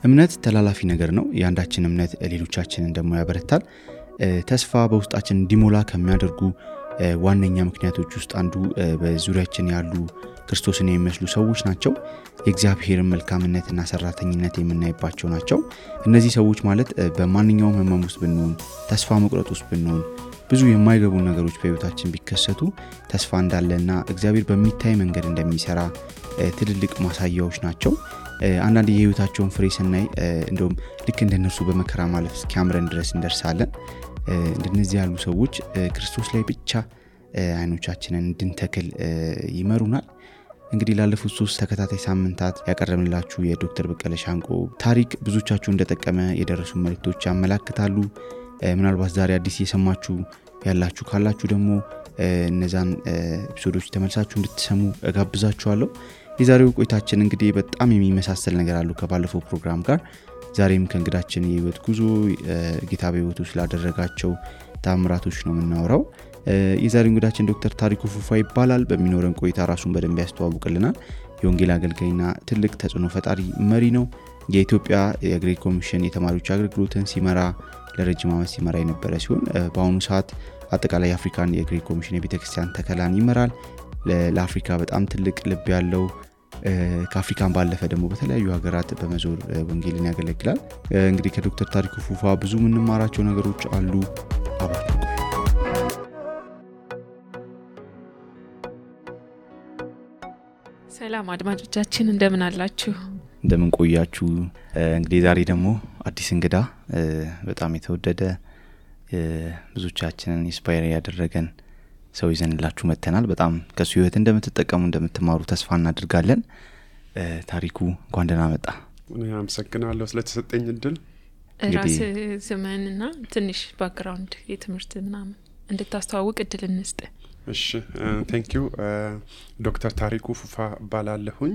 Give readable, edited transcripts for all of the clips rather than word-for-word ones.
እምነት ተላላፊ ነገር ነው። ያንዳችን እምነት ሌሎቻችንን ደግሞ ያበረታል። ተስፋ በውስጣችን እንዲሞላ ከሚያደርጉ ዋነኛ ምክንያቶች ውስጥ አንዱ በዙሪያችን ያሉ ክርስቶስን የሚመስሉ ሰዎች ናቸው። የእግዚአብሔርን መልካምነትና ሰራተኝነት የምናይባቸው ናቸው። እነዚህ ሰዎች ማለት በማንኛውም ህመም ውስጥ ብንሆን፣ ተስፋ መቁረጥ ውስጥ ብንሆን፣ ብዙ የማይገቡ ነገሮች በህይወታችን ቢከሰቱ ተስፋ እንዳለና እግዚአብሔር በሚታይ መንገድ እንደሚሰራ ትልልቅ ማሳያዎች ናቸው። አንዳንድ የህይወታቸውን ፍሬ ስናይ እንደውም ልክ እንደነሱ በመከራ ማለፍ እስኪያምረን ድረስ እንደርሳለን። እንደነዚህ ያሉ ሰዎች ክርስቶስ ላይ ብቻ አይኖቻችንን እንድንተክል ይመሩናል። እንግዲህ ላለፉት 3 ተከታታይ ሳምንታት ያቀረብንላችሁ የዶክተር በቀለ ሻንቆ ታሪክ ብዙዎቻችሁ እንደጠቀመ የደረሱ መልእክቶች ያመላክታሉ። ምናልባት ዛሬ አዲስ እየሰማችሁ ያላችሁ ካላችሁ ደግሞ እነዛን ኤፒሶዶች ተመልሳችሁ እንድትሰሙ እጋብዛችኋለሁ። የዛሬው ቆይታችን እንግዲህ በጣም የሚመሳሰል ነገር አለው ከባለፈው ፕሮግራም ጋር። ዛሬም ከእንግዳችን የህይወት ጉዞ ጌታ በህይወቱ ስላደረጋቸው ታምራቶች ነው የምናወራው። የዛሬው እንግዳችን ዶክተር ታሪኩ ፉፋ ይባላል። በሚኖረን ቆይታ ራሱን በደንብ ያስተዋውቅልናል። የወንጌል አገልጋይና ትልቅ ተጽዕኖ ፈጣሪ መሪ ነው። የኢትዮጵያ የግሬት ኮሚሽን የተማሪዎች አገልግሎትን ሲመራ ለረጅም ዓመት ሲመራ የነበረ ሲሆን በአሁኑ ሰዓት አጠቃላይ የአፍሪካን የግሬት ኮሚሽን የቤተክርስቲያን ተከላን ይመራል። ለአፍሪካ በጣም ትልቅ ልብ ያለው ከአፍሪካን ባለፈ ደግሞ በተለያዩ ሀገራት በመዞር ወንጌልን ያገለግላል። እንግዲህ ከዶክተር ታሪኩ ፉፋ ብዙ የምንማራቸው ነገሮች አሉ። አብራችሁ ሰላም አድማጮቻችን እንደምን አላችሁ? እንደምን ቆያችሁ? እንግዲህ ዛሬ ደግሞ አዲስ እንግዳ በጣም የተወደደ ብዙዎቻችንን ኢንስፓየር ያደረገን ሰው ይዘንላችሁ መተናል። በጣም ከሱ ህይወት እንደምትጠቀሙ እንደምትማሩ ተስፋ እናደርጋለን። ታሪኩ እንኳን ደህና መጣ። እኔ አመሰግናለሁ ስለተሰጠኝ እድል። ራስ ዘመንና ትንሽ ባክግራውንድ የትምህርት ምናምን እንድታስተዋውቅ እድል እንስጥ። እሺ ቴንክ ዩ። ዶክተር ታሪኩ ፉፋ ባላለሁኝ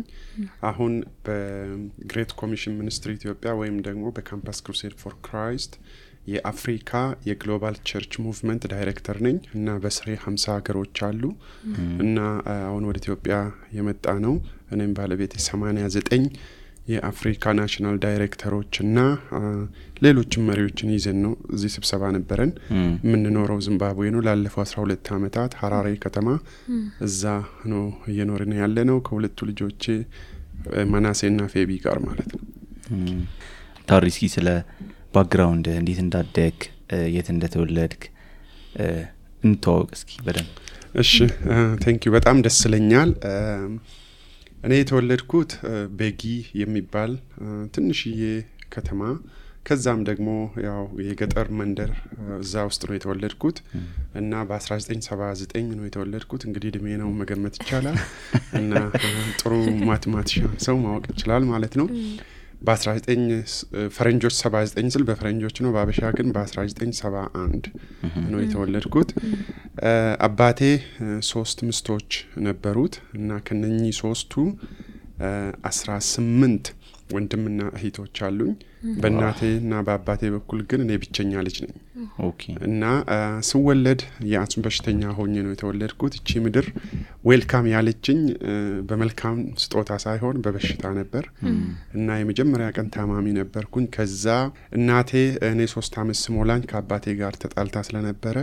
አሁን በግሬት ኮሚሽን ሚኒስትሪ ኢትዮጵያ ወይም ደግሞ በካምፓስ ክሩሴድ ፎር ክራይስት የአፍሪካ የግሎባል ቸርች ሙቭመንት ዳይሬክተር ነኝ እና በስሬ 50 ሀገሮች አሉ እና አሁን ወደ ኢትዮጵያ የመጣ ነው። እኔም ባለቤቴ 89 የአፍሪካ ናሽናል ዳይሬክተሮች እና ሌሎችም መሪዎችን ይዘን ነው እዚህ ስብሰባ ነበረን። የምንኖረው ዚምባብዌ ነው። ላለፈው 12 ዓመታት ሐራሬ ከተማ እዛ ነው እየኖርን ያለነው ከሁለቱ ልጆቼ መናሴና ፌቢ ጋር ማለት ነው። ታሪክ ስለ ባክግራውንድ እንዴት እንዳደግ የት እንደተወለድክ እንተዋወቅ እስኪ በደንብ። እሺ ቴንክ ዩ በጣም ደስ ይለኛል። እኔ የተወለድኩት ቤጊ የሚባል ትንሽዬ ከተማ ከዛም ደግሞ ያው የገጠር መንደር እዛ ውስጥ ነው የተወለድኩት እና በ1979 ነው የተወለድኩት። እንግዲህ እድሜ ነው መገመት ይቻላል እና ጥሩ ማትማቲሻን ሰው ማወቅ ይችላል ማለት ነው። በ19 ፈረንጆች 79 ስል በፈረንጆች ነው፣ በአበሻ ግን በ1971 ነው የተወለድኩት። አባቴ 3 ሚስቶች ነበሩት እና ከነኚህ 3ቱ 18 ወንድምና እህቶች አሉኝ። በእናቴና በአባቴ በኩል ግን እኔ ብቸኛ ልጅ ነኝ። ኦኬ። እና ስወለድ የአስም በሽተኛ ሆኜ ነው የተወለድኩት። እቺ ምድር ዌልካም ያለችኝ በመልካም ስጦታ ሳይሆን በበሽታ ነበር እና የመጀመሪያ ቀን ታማሚ ነበርኩኝ። ከዛ እናቴ እኔ 3 ዓመት ስሞላኝ ከአባቴ ጋር ተጣልታ ስለነበረ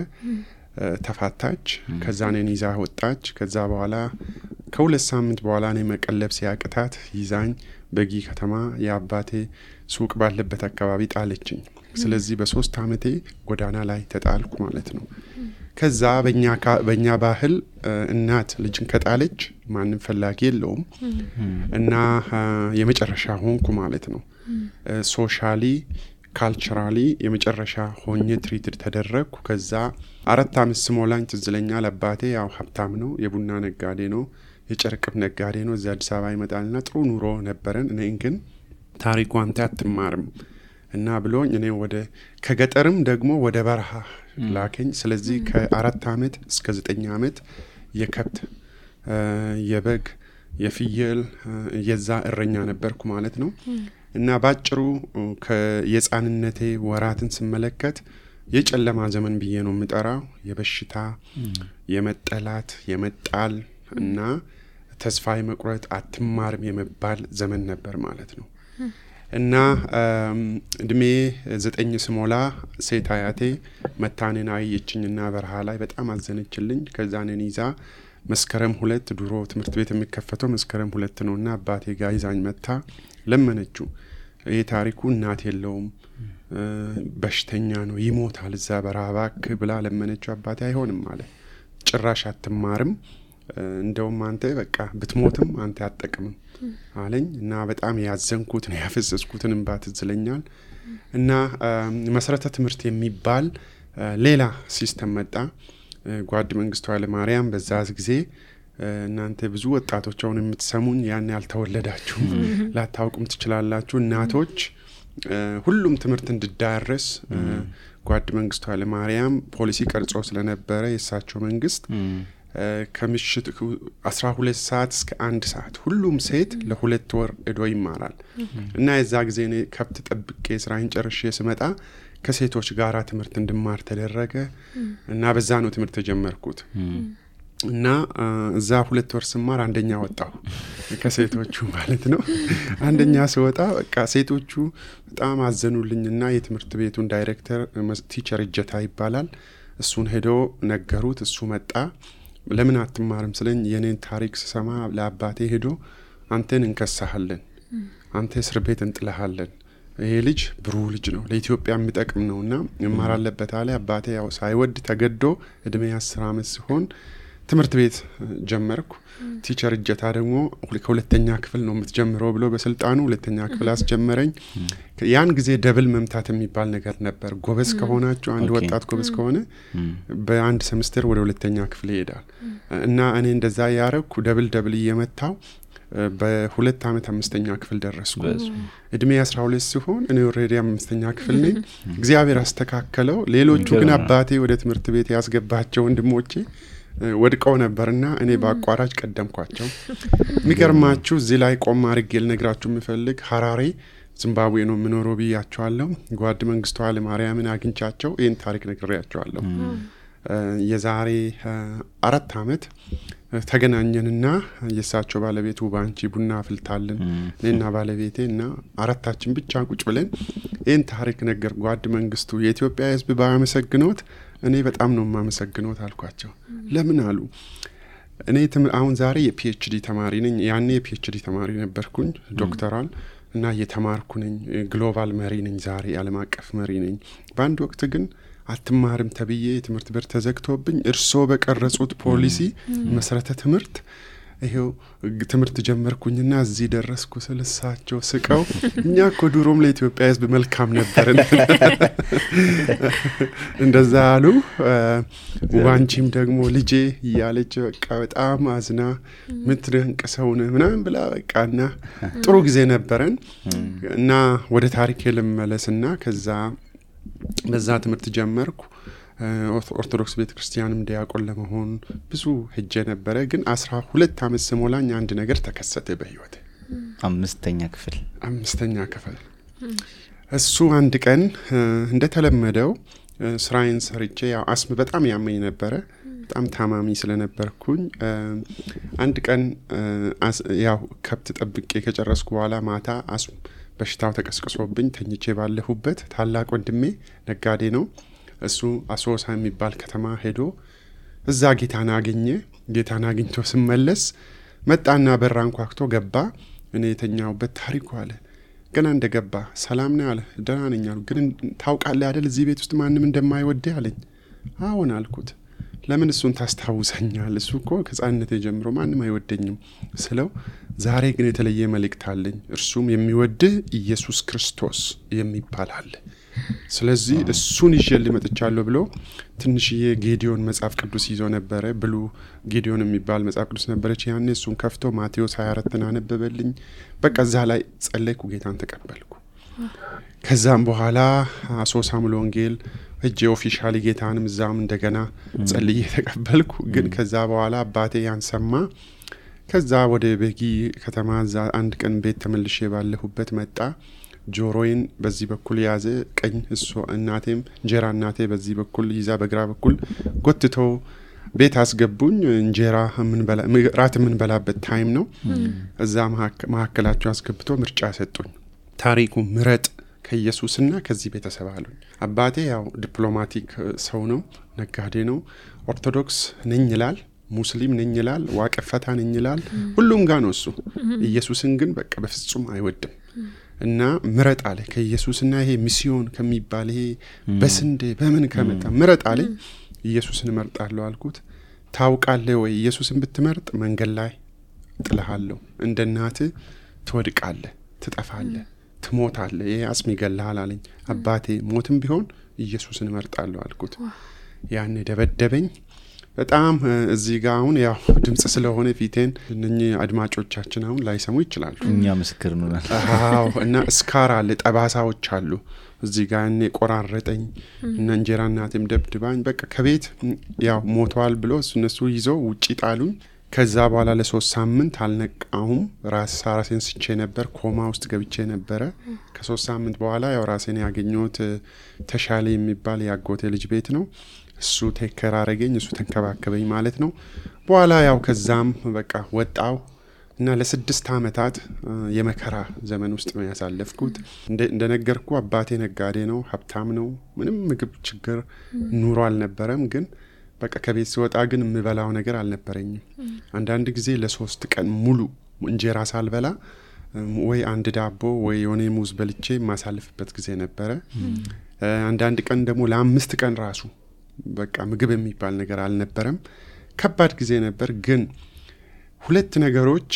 ተፋታች። ከዛ እኔን ይዛ ወጣች። ከዛ በኋላ ከ2 ሳምንት በኋላ እኔ መቀለብ ሲያቅታት ይዛኝ በጊ ከተማ የአባቴ ሱቅ ባለበት አካባቢ ጣለችኝ። ስለዚህ በ3 ዓመቴ ጎዳና ላይ ተጣልኩ ማለት ነው። ከዛ በእኛ ባህል እናት ልጅን ከጣለች ማንም ፈላጊ የለውም እና የመጨረሻ ሆንኩ ማለት ነው። ሶሻሊ ካልቸራሊ የመጨረሻ ሆኜ ትሪትድ ተደረግኩ። ከዛ 4 ዓመት ስሞላኝ ትዝ ይለኛል አባቴ ያው ሀብታም ነው፣ የቡና ነጋዴ ነው፣ የጨርቅም ነጋዴ ነው። እዛ አዲስ አበባ ይመጣልና ጥሩ ኑሮ ነበረን። እኔ ግን ታሪኩ አንተ አትማርም እና ብሎኝ እኔ ከገጠርም ደግሞ ወደ በረሃ ላከኝ። ስለዚህ ከ4 ዓመት እስከ 9 ዓመት የከብት የበግ የፍየል የዛ እረኛ ነበርኩ ማለት ነው። እና ባጭሩ የህፃንነቴ ወራትን ስመለከት የጨለማ ዘመን ብዬ ነው የምጠራው። የበሽታ የመጠላት የመጣል እና ተስፋ የመቁረጥ አትማርም የመባል ዘመን ነበር ማለት ነው። እና እድሜ 9 ስሞላ ሴት አያቴ መታኔን አየችኝና በረሃ ላይ በጣም አዘነችልኝ። ከዛ እኔን ይዛ መስከረም 2 ድሮ ትምህርት ቤት የሚከፈተው መስከረም 2 ነውና አባቴ ጋር ይዛኝ መታ ለመነችው። ይሄ ታሪኩ እናት የለውም በሽተኛ ነው ይሞታል እዛ በረሃ እባክህ ብላ ለመነችው። አባቴ አይሆንም አለ። ጭራሽ አትማርም እንደውም አንተ በቃ ብትሞትም አንተ አትጠቅምም አለኝ። እና በጣም ያዘንኩት ነው ያፈሰስኩትን እንባ ትዝ ይለኛል። እና መሰረተ ትምህርት የሚባል ሌላ ሲስተም መጣ። ጓድ መንግስቱ ኃይለማርያም በዛ ጊዜ እናንተ ብዙ ወጣቶች አሁን የምትሰሙኝ ያን ያልተወለዳችሁ ላታውቁም ትችላላችሁ። እናቶች ሁሉም ትምህርት እንዲዳረስ ጓድ መንግስቱ ኃይለማርያም ፖሊሲ ቀርጾ ስለነበረ የሳቸው መንግስት ከምሽት 12 ሰዓት እስከ 1 ሰዓት ሁሉም ሴት ለ2 ወር እዶ ይማራል። እና የዛ ጊዜ እኔ ከብት ጠብቄ ስራዬን ጨርሼ ስመጣ ከሴቶች ጋራ ትምህርት እንድማር ተደረገ። እና በዛ ነው ትምህርት ተጀመርኩት። እና እዛ 2 ወር ስማር አንደኛ ወጣሁ ከሴቶቹ ማለት ነው። አንደኛ ስወጣ በቃ ሴቶቹ በጣም አዘኑልኝና የትምህርት ቤቱን ዳይሬክተር ቲቸር እጀታ ይባላል እሱን ሄዶ ነገሩት። እሱ መጣ። ለምን አትማርም ስለኝ የኔን ታሪክ ስሰማ ለአባቴ ሄዶ አንተን እንከሳሃለን፣ አንተ እስር ቤት እንጥለሃለን፣ ይሄ ልጅ ብሩህ ልጅ ነው ለኢትዮጵያ የሚጠቅም ነውና መማር አለበት አለ። አባቴ ያው ሳይወድ ተገዶ እድሜ 10 ዓመት ሲሆን ትምህርት ቤት ጀመርኩ። ቲቸር እጀታ ደግሞ ከሁለተኛ ክፍል ነው የምትጀምረው ብሎ በስልጣኑ ሁለተኛ ክፍል አስጀመረኝ። ያን ጊዜ ደብል መምታት የሚባል ነገር ነበር። ጎበዝ ከሆናችሁ አንድ ወጣት ጎበዝ ከሆነ በአንድ ሴሚስተር ወደ ሁለተኛ ክፍል ይሄዳል። እና እኔ እንደዛ ያረኩ ደብል እየመታው በ2 ዓመት 5ኛ ክፍል ደረስኩ። እድሜ 12 ሲሆን እኔ ኦሬዲ 5ኛ ክፍል ነኝ። እግዚአብሔር አስተካከለው። ሌሎቹ ግን አባቴ ወደ ትምህርት ቤት ያስገባቸው ወንድሞቼ ወድቀው ነበርና እኔ በአቋራጭ ቀደምኳቸው። የሚገርማችሁ እዚህ ላይ ቆም አድርጌ ልነግራችሁ የምፈልግ ሐራሬ ዚምባብዌ ነው የምኖረው ብያቸዋለሁ። ጓድ መንግስቱ ኃይለማርያምን አግኝቻቸው ይህን ታሪክ ነግሬያቸዋለሁ። የዛሬ 4 ዓመት ተገናኘንና የሳቸው ባለቤት ውባንቺ ቡና አፍልታልን እኔና ባለቤቴ እና አራታችን ብቻ ቁጭ ብለን ይህን ታሪክ ነገር ጓድ መንግስቱ የኢትዮጵያ ሕዝብ ባያመሰግኖት እኔ በጣም ነው የማመሰግኖት አልኳቸው። ለምን አሉ። እኔ አሁን ዛሬ የፒኤችዲ ተማሪ ነኝ። ያኔ የፒኤችዲ ተማሪ ነበርኩኝ ዶክተራል እና እየተማርኩ ነኝ። ግሎባል መሪ ነኝ። ዛሬ ዓለም አቀፍ መሪ ነኝ። በአንድ ወቅት ግን አትማርም ተብዬ ትምህርት ቤት ተዘግቶብኝ እርሶ በቀረጹት ፖሊሲ መሰረተ ትምህርት ይሄው ትምህርት ጀመርኩኝና እዚህ ደረስኩ ስለሳቸው ስቀው እኛ እኮ ድሮም ለኢትዮጵያ ሕዝብ መልካም ነበርን እንደዛ አሉ። ዋንቺም ደግሞ ልጄ እያለች በቃ በጣም አዝና ምትደንቅ ሰው ነህ ምናምን ብላ በቃና ጥሩ ጊዜ ነበረን። እና ወደ ታሪኬ ልመለስና ከዛ በዛ ትምህርት ጀመርኩ። ኦርቶዶክስ ቤተክርስቲያንም ዲያቆን ለመሆን ብዙ ሄጄ ነበረ። ግን 12 ዓመት ስሞላኝ አንድ ነገር ተከሰተ በህይወቴ። 5ኛ ክፍል እሱ አንድ ቀን እንደተለመደው ስራዬን ሰርቼ ያው አስም በጣም ያመኝ ነበረ። በጣም ታማሚ ስለነበርኩኝ አንድ ቀን ያው ከብት ጠብቄ ከጨረስኩ በኋላ ማታ አስም በሽታው ተቀስቅሶብኝ ተኝቼ ባለሁበት ታላቅ ወንድሜ ነጋዴ ነው እሱ አሶሳ የሚባል ከተማ ሄዶ እዛ ጌታን አገኘ። ጌታን አግኝቶ ሲመለስ መጣና በራን ኳክቶ ገባ። እኔ የተኛውበት ታሪኩ አለ። ገና እንደገባ ሰላም ነው አለ። ደህና ነኝ አልኩ። ግን ታውቃለህ አይደል እዚህ ቤት ውስጥ ማንም እንደማይወድህ አለኝ። አዎን አልኩት። ለምን እሱን ታስታውሰኛል? እሱ እኮ ከሕፃንነቴ ጀምሮ ማንም አይወደኝም ስለው ዛሬ ግን የተለየ መልእክት አለኝ። እርሱም የሚወድህ ኢየሱስ ክርስቶስ የሚባል አለ። ስለዚህ እሱን ይዤልህ መጥቻለሁ ብሎ ትንሽዬ ጌዲዮን መጽሐፍ ቅዱስ ይዞ ነበረ። ብሉ ጌዲዮን የሚባል መጽሐፍ ቅዱስ ነበረች ያኔ። እሱን ከፍቶ ማቴዎስ 24 አነበበልኝ። በቃ እዛ ላይ ጸለይኩ፣ ጌታን ተቀበልኩ። ከዛም በኋላ አሶሳ ሙሉ ወንጌል እጄ ኦፊሻሊ ጌታንም እዛም እንደገና ጸልዬ ተቀበልኩ። ግን ከዛ በኋላ አባቴ ያንሰማ። ከዛ ወደ ቤጊ ከተማ እዛ አንድ ቀን ቤት ተመልሼ ባለሁበት መጣ። ጆሮዬን በዚህ በኩል ያዘ ቀኝ እሱ እናቴም እንጀራ እናቴ በዚህ በኩል ይዛ በግራ በኩል ጎትተው ቤት አስገቡኝ። እንጀራ ራት ምን በላበት ታይም ነው። እዛ መሐከላቸው አስገብቶ ምርጫ ሰጡኝ። ታሪኩ ምረጥ ከኢየሱስና ከዚህ ቤተሰብ አሉኝ። አባቴ ያው ዲፕሎማቲክ ሰው ነው፣ ነጋዴ ነው። ኦርቶዶክስ ነኝ ይላል፣ ሙስሊም ነኝ ይላል፣ ዋቀፈታ ነኝ ይላል። ሁሉም ጋር ነው እሱ። ኢየሱስን ግን በቃ በፍጹም አይወድም። እና ምረጥ አለ ከኢየሱስና ይሄ ሚስዮን ከሚባል ይሄ በስንዴ በምን ከመጣ ምረጥ አለ። ኢየሱስን እመርጣለሁ አልኩት። ታውቃለህ ወይ ኢየሱስን ብትመርጥ መንገድ ላይ ጥልሃለሁ፣ እንደ እናትህ ትወድቃለህ፣ ትጠፋለህ፣ ትሞታለህ፣ ይሄ አጽም ይገላል አለኝ። አባቴ ሞትም ቢሆን ኢየሱስን እመርጣለሁ አልኩት። ያኔ ደበደበኝ በጣም። እዚህ ጋር አሁን ያው ድምጽ ስለሆነ ፊቴን እነኚህ አድማጮቻችን አሁን ላይሰሙ ይችላሉ። እኛ ምስክር ነን። አዎ። እና ስካር አለ፣ ጠባሳዎች አሉ እዚህ ጋር። እኔ ቆራረጠኝ እና እንጀራ እናቴም ደብድባኝ በቃ ከቤት ያው ሞቷል ብሎ እነሱ ይዘው ውጪ ጣሉኝ። ከዛ በኋላ ለ3 ሳምንት አልነቃሁም። ራሴን ስቼ ነበር፣ ኮማ ውስጥ ገብቼ ነበረ። ከ3 ሳምንት በኋላ ያው ራሴን ያገኘሁት ተሻለ የሚባል ያጎቴ ልጅ ቤት ነው። እሱ ቴከር አረገኝ፣ እሱ ተንከባከበኝ ማለት ነው። በኋላ ያው ከዛም በቃ ወጣው እና ለ6 አመታት የመከራ ዘመን ውስጥ ነው ያሳለፍኩት። እንደነገርኩ አባቴ ነጋዴ ነው፣ ሀብታም ነው። ምንም ምግብ ችግር ኑሮ አልነበረም። ግን በቃ ከቤት ስወጣ ግን የምበላው ነገር አልነበረኝም። አንዳንድ ጊዜ ለ3 ቀን ሙሉ እንጀራ ሳልበላ ወይ አንድ ዳቦ ወይ የሆነ ሙዝ በልቼ ማሳልፍበት ጊዜ ነበረ። አንዳንድ ቀን ደግሞ ለ5 ቀን ራሱ በቃ ምግብ የሚባል ነገር አልነበረም። ከባድ ጊዜ ነበር። ግን 2 ነገሮች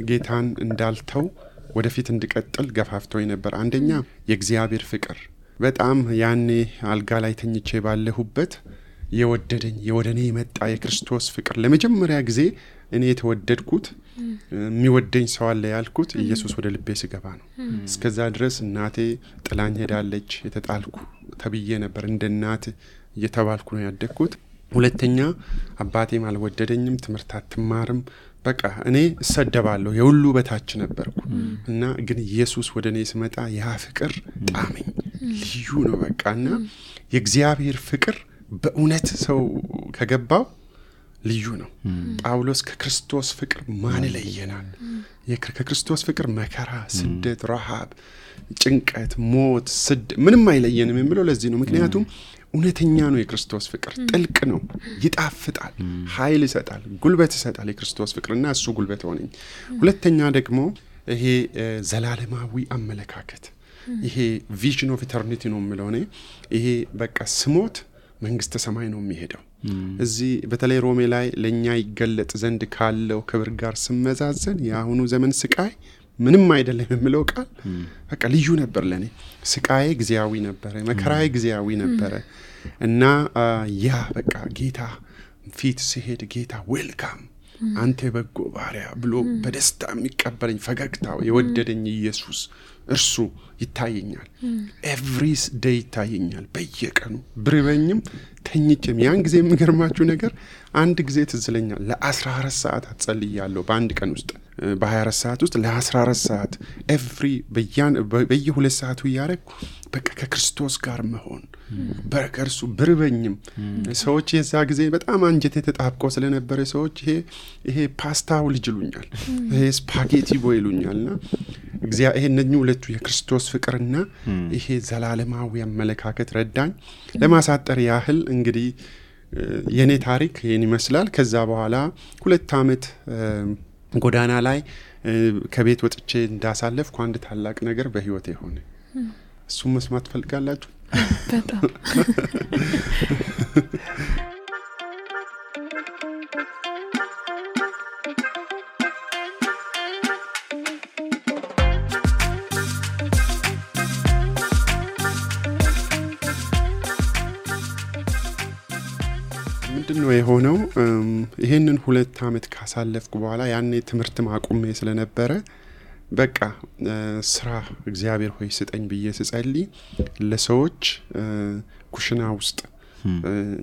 ጌታን እንዳልተው ወደፊት እንድቀጥል ገፋፍቶኝ ነበር። አንደኛ የእግዚአብሔር ፍቅር። በጣም ያኔ አልጋ ላይ ተኝቼ ባለሁበት የወደደኝ የወደኔ የመጣ የክርስቶስ ፍቅር ለመጀመሪያ ጊዜ እኔ የተወደድኩት የሚወደኝ ሰው አለ ያልኩት ኢየሱስ ወደ ልቤ ሲገባ ነው። እስከዛ ድረስ እናቴ ጥላኝ ሄዳለች፣ የተጣልኩ ተብዬ ነበር። እንደ እናት እየተባልኩ ነው ያደግኩት። ሁለተኛ አባቴም አልወደደኝም፣ ትምህርት አትማርም፣ በቃ እኔ እሰደባለሁ፣ የሁሉ በታች ነበርኩ። እና ግን ኢየሱስ ወደ እኔ ሲመጣ ያ ፍቅር ጣመኝ፣ ልዩ ነው በቃ። እና የእግዚአብሔር ፍቅር በእውነት ሰው ከገባው ልዩ ነው። ጳውሎስ ከክርስቶስ ፍቅር ማን ይለየናል? ከክርስቶስ ፍቅር መከራ፣ ስደት፣ ረሃብ፣ ጭንቀት፣ ሞት፣ ምንም አይለየንም የሚለው ለዚህ ነው። ምክንያቱም እውነተኛ ነው የክርስቶስ ፍቅር፣ ጥልቅ ነው፣ ይጣፍጣል፣ ኃይል ይሰጣል፣ ጉልበት ይሰጣል የክርስቶስ ፍቅርና እሱ ጉልበት ሆነኝ። ሁለተኛ ደግሞ ይሄ ዘላለማዊ አመለካከት፣ ይሄ ቪዥን ኦፍ ኢተርኒቲ ነው የሚለው እኔ። ይሄ በቃ ስሞት መንግስተ ሰማይ ነው የሚሄደው። እዚህ በተለይ ሮሜ ላይ ለኛ ይገለጥ ዘንድ ካለው ክብር ጋር ስመዛዘን የአሁኑ ዘመን ስቃይ ምንም አይደለም የሚለው ቃል በቃ ልዩ ነበር ለኔ። ስቃዬ ጊዜያዊ ነበር፣ መከራዬ ጊዜያዊ ነበር። እና ያ በቃ ጌታ ፊት ሲሄድ ጌታ ዌልካም አንተ በጎ ባሪያ ብሎ በደስታ የሚቀበለኝ ፈገግታው የወደደኝ ኢየሱስ እርሱ ይታየኛል። ኤቭሪ ዴይ ይታየኛል፣ በየቀኑ ብርበኝም ተኝቼም። ያን ጊዜ የሚገርማችሁ ነገር አንድ ጊዜ ትዝለኛል። ለ14 ሰዓት አጸልያለሁ በአንድ ቀን ውስጥ፣ በ24 ሰዓት ውስጥ ለ14 ሰዓት ኤቭሪ በየ2 ሰዓቱ እያረግኩ በቃ ከክርስቶስ ጋር መሆን በከርሱ ብርበኝም። ሰዎች የዛ ጊዜ በጣም አንጀቴ ተጣብቆ ስለነበረ ሰዎች ይሄ ፓስታው ልጅ ይሉኛል፣ ይሄ ስፓጌቲ ቦይ ይሉኛልና ይሄ እነኚህ ሁለቱ የክርስቶስ ፍቅርና ይሄ ዘላለማዊ አመለካከት ረዳኝ። ለማሳጠር ያህል እንግዲህ የኔ ታሪክ ይሄን ይመስላል። ከዛ በኋላ 2 አመት ጎዳና ላይ ከቤት ወጥቼ እንዳሳለፍኩ አንድ ታላቅ ነገር በህይወቴ ሆነ። እሱም መስማት ፈልጋላችሁ? በጣም ምንድነው የሆነው? ይሄንን 2 አመት ካሳለፍኩ በኋላ ያኔ ትምህርት ማቆሜ ስለነበረ በቃ ስራ እግዚአብሔር ሆይ ስጠኝ ብዬ ስጸልይ ለሰዎች ኩሽና ውስጥ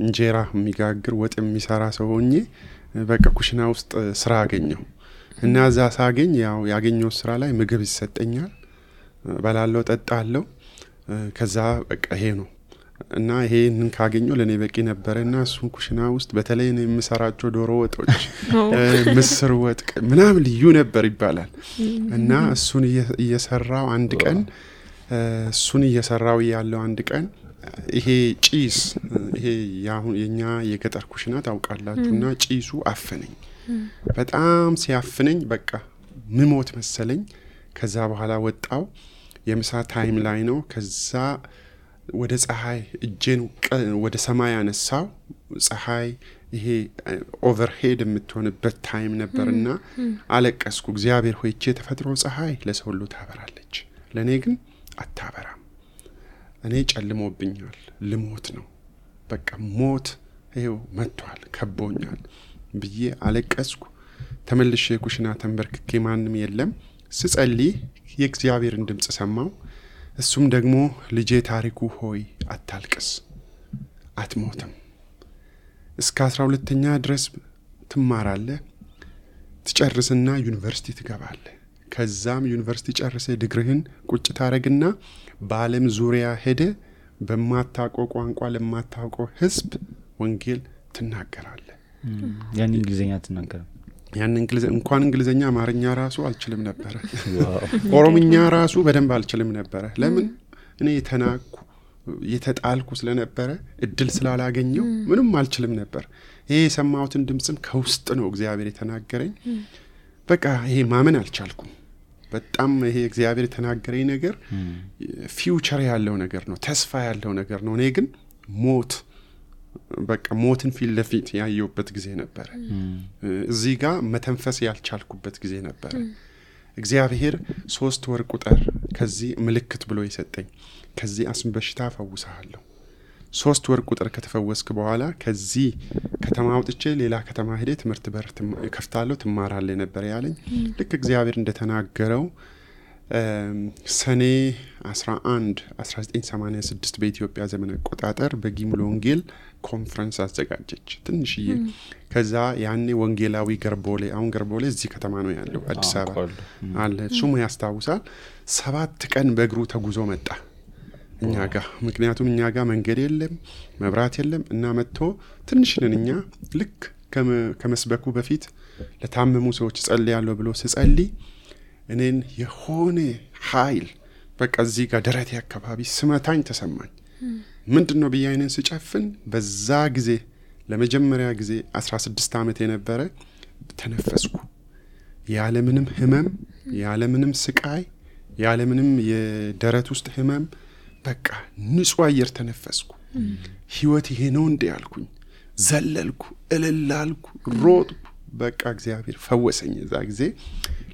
እንጀራ የሚጋግር ወጥ የሚሰራ ሰው ሆኜ በቃ ኩሽና ውስጥ ስራ አገኘሁ። እና እዛ ሳገኝ ያው ያገኘው ስራ ላይ ምግብ ይሰጠኛል፣ በላለው ጠጣለው። ከዛ በቃ ይሄ ነው እና ይሄንን ካገኘው ለኔ በቂ ነበርና እሱን ኩሽና ውስጥ በተለይ ነው የምሰራቸው ዶሮ ወጦች ምስር ወጥ ምናምን ልዩ ነበር ይባላል እና እሱን እየሰራው አንድ ቀን እሱን እየሰራው ያለው አንድ ቀን ይሄ ጪስ ይሄ የኛ የገጠር ኩሽና ታውቃላችሁና ጪሱ አፈነኝ በጣም ሲያፍነኝ በቃ ምሞት መሰለኝ ከዛ በኋላ ወጣው የምሳ ታይም ላይ ነው ከዛ ወደ ፀሐይ እጄን ወደ ሰማይ አነሳው ፀሐይ ይሄ ኦቨርሄድ የምትሆንበት ታይም ነበርና አለቀስኩ እግዚአብሔር ሆይ እቺ ተፈጥሮ ፀሐይ ለሰው ሁሉ ታበራለች ለኔ ግን አታበራም እኔ ጨልሞብኛል ልሞት ነው በቃ ሞት ይሄው መጥቷል ከቦኛል ብዬ አለቀስኩ ተመልሼ ኩሽና ተንበርክኬ ማንንም የለም ስጸልይ የእግዚአብሔርን ድምጽ ሰማው እሱም ደግሞ ልጄ ታሪኩ ሆይ አታልቅስ አትሞትም እስከ 12ኛ ድረስ ትማራለህ ትጨርስና ዩኒቨርሲቲ ትገባለህ ከዛም ዩኒቨርሲቲ ጨርሰ ዲግሪህን ቁጭ ታረግና በዓለም ዙሪያ ሄደ በማታውቀው ቋንቋ ለማታውቀው ህዝብ ወንጌል ትናገራለህ ያን እንግሊዘኛ ትናገራለህ ያን እንኳን እንግሊዘኛ አማርኛ ራሱ አልችልም ነበር ኦሮምኛ ራሱ በደንብ አልችልም ነበር ለምን እኔ ተናኩ የተጣልኩ ስለነበረ እድል ስላላገኘው ምንም አልችልም ነበር ይሄ የሰማሁትን ድምጽም ከውስጥ ነው እግዚአብሔር የተናገረኝ በቃ ይሄ ማመን አልቻልኩም በጣም ይሄ እግዚአብሔር የተናገረኝ ነገር ፊውቸር ያለው ነገር ነው ተስፋ ያለው ነገር ነው እኔ ግን ሞት በቃ ሞትን ፊት ለፊት ያየውበት ጊዜ ነበር እዚህ ጋር መተንፈስ ያልቻልኩበት ጊዜ ነበር እግዚአብሔር 3 ወር ቁጥር ከዚህ ምልክት ብሎ ይሰጠኝ ከዚህ አስም በሽታ ፈውሳለሁ 3 ወር ቁጥር ከተፈወስክ በኋላ ከዚህ ከተማ አውጥቼ ሌላ ከተማ ሄደ ትምህርት በር ከፍታለሁ ትማራለህ ነበር ያለኝ ልክ እግዚአብሔር እንደተናገረው ሰኔ 11 1986 በኢትዮጵያ ዘመን አቆጣጠር በጊሙሎ ወንጌል ኮንፈረንስ አዘጋጀች ትንሽዬ ከዛ ያኔ ወንጌላዊ ገርቦሌ አሁን ገርቦሌ እዚህ ከተማ ነው ያለው አዲስ አበባ አለ ሱሙ ያስታውሳል 7 ቀን በእግሩ ተጉዞ መጣ እኛ ጋር ምክንያቱም እኛ ጋር መንገድ የለም መብራት የለም እና መጥቶ ትንሽነን እኛ ልክ ከመስበኩ በፊት ለታመሙ ሰዎች ጸልያለሁ ብሎ ሲጸልይ እኔን የሆነ ኃይል በቃ እዚህ ጋር ደረቴ አካባቢ ስመታኝ ተሰማኝ ምንድነው በያይነን ስጨፍን በዛ ጊዜ ለመጀመሪያ ጊዜ 16 ዓመት የነበረ ተነፈስኩ ያለ ምንም ህመም ያለ ምንም ስቃይ ያለ ምንም የደረት ውስጥ ህመም በቃ ንጹህ አየር ተነፈስኩ ህይወት ይሄ ነው እንደ ያልኩኝ ዘለልኩ እልልላልኩ ሮጥኩ በቃ እግዚአብሔር ፈወሰኝ እዛ ጊዜ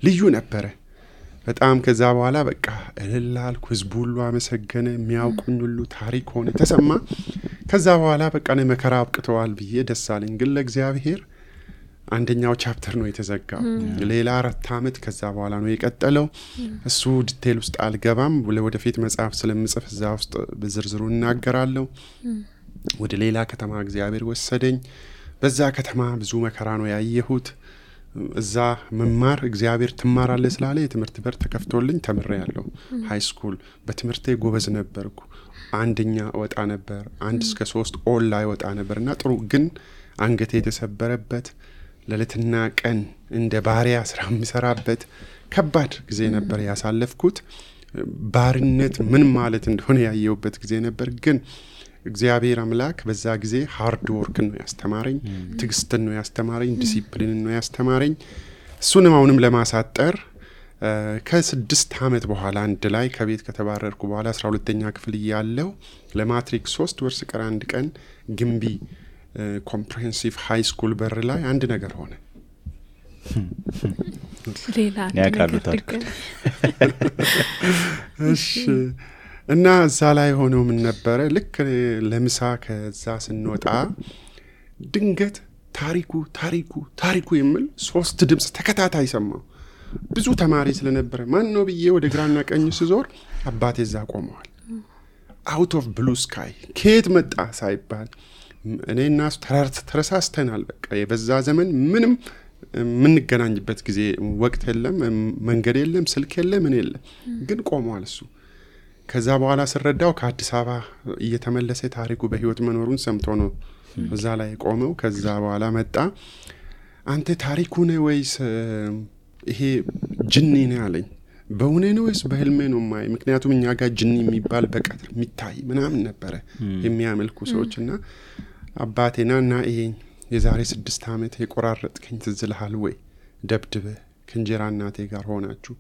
ልዩ ነበር በጣም ከዛ በኋላ በቃ እልልላልኩ ህዝቡ ሁሉ አመሰገነ የሚያውቁኝ ሁሉ ታሪክ ሆነ ተሰማ ከዛ በኋላ በቃ ነው መከራ አብቅተዋል ብዬ ደሳለኝ ግን ለእግዚአብሔር አንደኛው ቻፕተር ነው የተዘጋው ሌላ 4 ዓመት ከዛ በኋላ ነው የቀጠለው እሱ ዲቴል ውስጥ አልገባም ወደፊት መጽሐፍ ስለምጽፍ እዛ ውስጥ በዝርዝሩ እናገራለሁ ወደ ሌላ ከተማ እግዚአብሔር ወሰደኝ በዛ ከተማ ብዙ መከራ ነው ያየሁት እዛ መማር እግዚአብሔር ትማራለህ ስላለ የትምህርት በር ተከፍቶልኝ ተምሬያለሁ ሃይ ስኩል በትምህርቴ ጎበዝ ነበርኩ አንደኛ ወጣ ነበር 1 እስከ 3 ኦል ላይ ወጣ ነበርና ጥሩ ግን አንገቴ የተሰበረበት ለለትና ቀን እንደ ባሪያ ስራ ምሰራበት ከባድ ጊዜ ነበር ያሳለፍኩት ባርነት ምን ማለት እንደሆነ ያየውበት ጊዜ ነበር ግን እግዚአብሔር አምላክ በዛ ጊዜ ሃርድ ወርክ ነው ያስተማረኝ ትግስትን ነው ያስተማረኝ ዲሲፕሊን ነው ያስተማረኝ እሱንም አሁንም ለማሳጠር ከ6 ዓመት በኋላ አንድ ላይ ከቤት ከተባረርኩ በኋላ 12ኛ ክፍል ያለው ለማትሪክ 3 ወር ስቀር አንድ ቀን ግምቢ ኮምፕሬሄንሲቭ ሃይ ስኩል በር ላይ አንድ ነገር ሆነ ሌላ ነገር እሺ እና እዛ ላይ ሆኖ ምን ነበር ልክ ለምሳ ከዛ ስንወጣ ድንገት ታሪኩ የሚል 3 ድምጽ ተከታታይ ሰማው ብዙ ተማሪ ስለነበረ ማን ነው ብዬ ወደ ግራና ቀኝ ስዞር አባቴ እዛ ቆመዋል out of blue sky ከየት መጣ ሳይባል እኔና እሱ ተረሳስተናል በቃ የበዛ ዘመን ምንም ምንገናኝበት ጊዜ ወቅት የለም መንገድ የለም ስልክ የለም ምን የለም ግን ቆመዋል እሱ ከዛ በኋላ ስረዳው ከአዲስ አበባ እየተመለሰ ታሪኩ በህይወት መኖሩን ሰምቶ ነው እዛ ላይ ቆመው። ከዛ በኋላ መጣ። አንተ ታሪኩ ነህ ወይስ ይሄ ጅኒ ነው አለኝ። በእውኔ ነው ወይስ በህልሜ ነው ማይ? ምክንያቱም እኛ ጋር ጅኒ የሚባል በቀትር የሚታይ ምናምን ነበረ የሚያመልኩ ሰዎችና አባቴና ይሄን የዛሬ 6 ዓመት የቆራረጥከኝ ትዝ ይልሃል ወይ? ደብድበህ ከእንጀራ እናቴ ጋር ሆናችሁ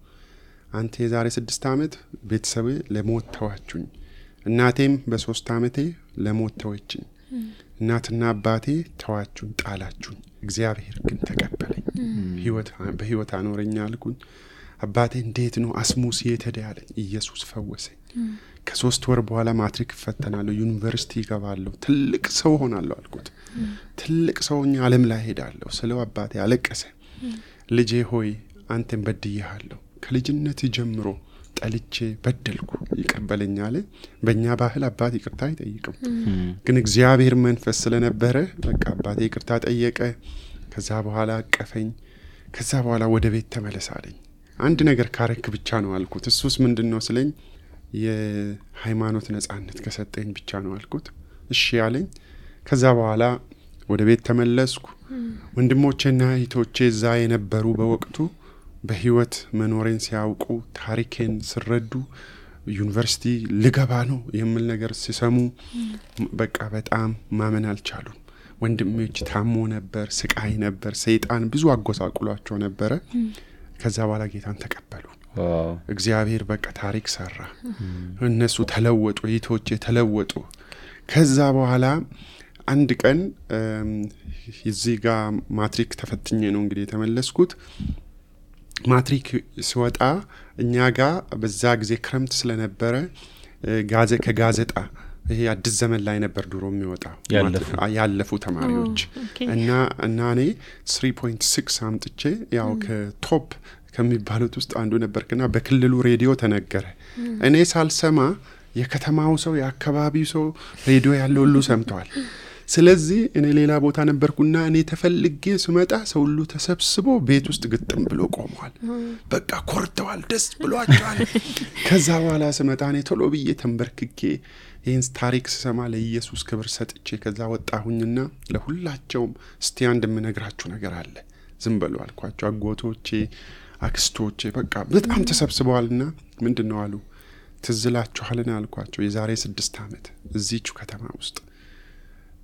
አንተ የዛሬ 6 ዓመት ቤተሰቤ ለሞት ተዋችሁኝ፣ እናቴም በ3 ዓመቴ ለሞት ተወችኝ፣ እናትና አባቴ ተዋችሁኝ፣ ጣላችሁኝ፣ እግዚአብሔር ግን ተቀበለኝ፣ በህይወት አኖረኝ አልኩኝ። አባቴ እንዴት ነው አስሙስ የተዳለኝ? ኢየሱስ ፈወሰኝ። ከ3 ወር በኋላ ማትሪክ ፈተናለሁ፣ ዩኒቨርሲቲ ገባለሁ፣ ትልቅ ሰው ሆናለሁ አልኩት። ትልቅ ሰውኛ ዓለም ላይ ሄዳለሁ ስለው አባቴ አለቀሰ። ልጄ ሆይ አንተን በድያለሁ፣ ከልጅነት ጀምሮ ጠልቼ በደልኩ፣ ይቀበለኛል። በእኛ ባህል አባት ይቅርታ አይጠይቅም፣ ግን እግዚአብሔር መንፈስ ስለነበረ በቃ አባቴ ይቅርታ ጠየቀ። ከዛ በኋላ አቀፈኝ። ከዛ በኋላ ወደ ቤት ተመለሳለኝ። አንድ ነገር ካረክ ብቻ ነው አልኩት። እሱስ ምንድነው ስለኝ የሃይማኖት ነጻነት ከሰጠኝ ብቻ ነው አልኩት። እሺ ያለኝ። ከዛ በኋላ ወደ ቤት ተመለስኩ። ወንድሞቼና እህቶቼ እዛ የነበሩ በወቅቱ በህይወት መኖሬን ሲያውቁ ታሪኬን ሲረዱ ዩኒቨርሲቲ ልገባ ነው የሚል ነገር ሲሰሙ በቃ በጣም ማመን አልቻሉም። ወንድሞቼ ታሞ ነበር፣ ስቃይ ነበር፣ ሰይጣን ብዙ አጎሳቁሏቸው ነበር። ከዛ በኋላ ጌታን ተቀበሉ። እግዚአብሔር በቃ ታሪክ ሰራ። እነሱ ተለወጡ፣ እህቶቼ ተለወጡ። ከዛ በኋላ አንድ ቀን እዚህ ጋር ማትሪክ ተፈትኜ ነው እንግዲህ የተመለስኩት። ማትሪክ ሲወጣ እኛ ጋር በዛ ጊዜ ክረምት ስለነበረ ከጋዜጣ ይሄ አዲስ ዘመን ላይ ነበር ድሮ የሚወጣው ያለፉ ተማሪዎች እና እኔ 3.6 አምጥቼ ያው ከቶፕ ከሚባሉት ውስጥ አንዱ ነበርኩና በክልሉ ሬዲዮ ተነገረ። እኔ ሳልሰማ የከተማው ሰው የአካባቢው ሰው ሬዲዮ ያለው ሁሉ ሰምቷል። ስለዚህ እኔ ሌላ ቦታ ነበርኩና እኔ ተፈልጌ ስመጣ ሰው ሁሉ ተሰብስቦ ቤት ውስጥ ግጥም ብሎ ቆመዋል። በቃ ኮርተዋል፣ ደስ ብሏቸዋል። ከዛ በኋላ ስመጣ እኔ ቶሎ ብዬ ተንበርክኬ ይህን ታሪክ ስሰማ ለኢየሱስ ክብር ሰጥቼ ከዛ ወጣሁኝና ለሁላቸውም እስቲ አንድ የምነግራችሁ ነገር አለ ዝም በሉ አልኳቸው። አጎቶቼ፣ አክስቶቼ በቃ በጣም ተሰብስበዋልና ምንድነው አሉ። ትዝ ይላችኋልና አልኳቸው። የዛሬ 6 ዓመት እዚህቹ ከተማ ውስጥ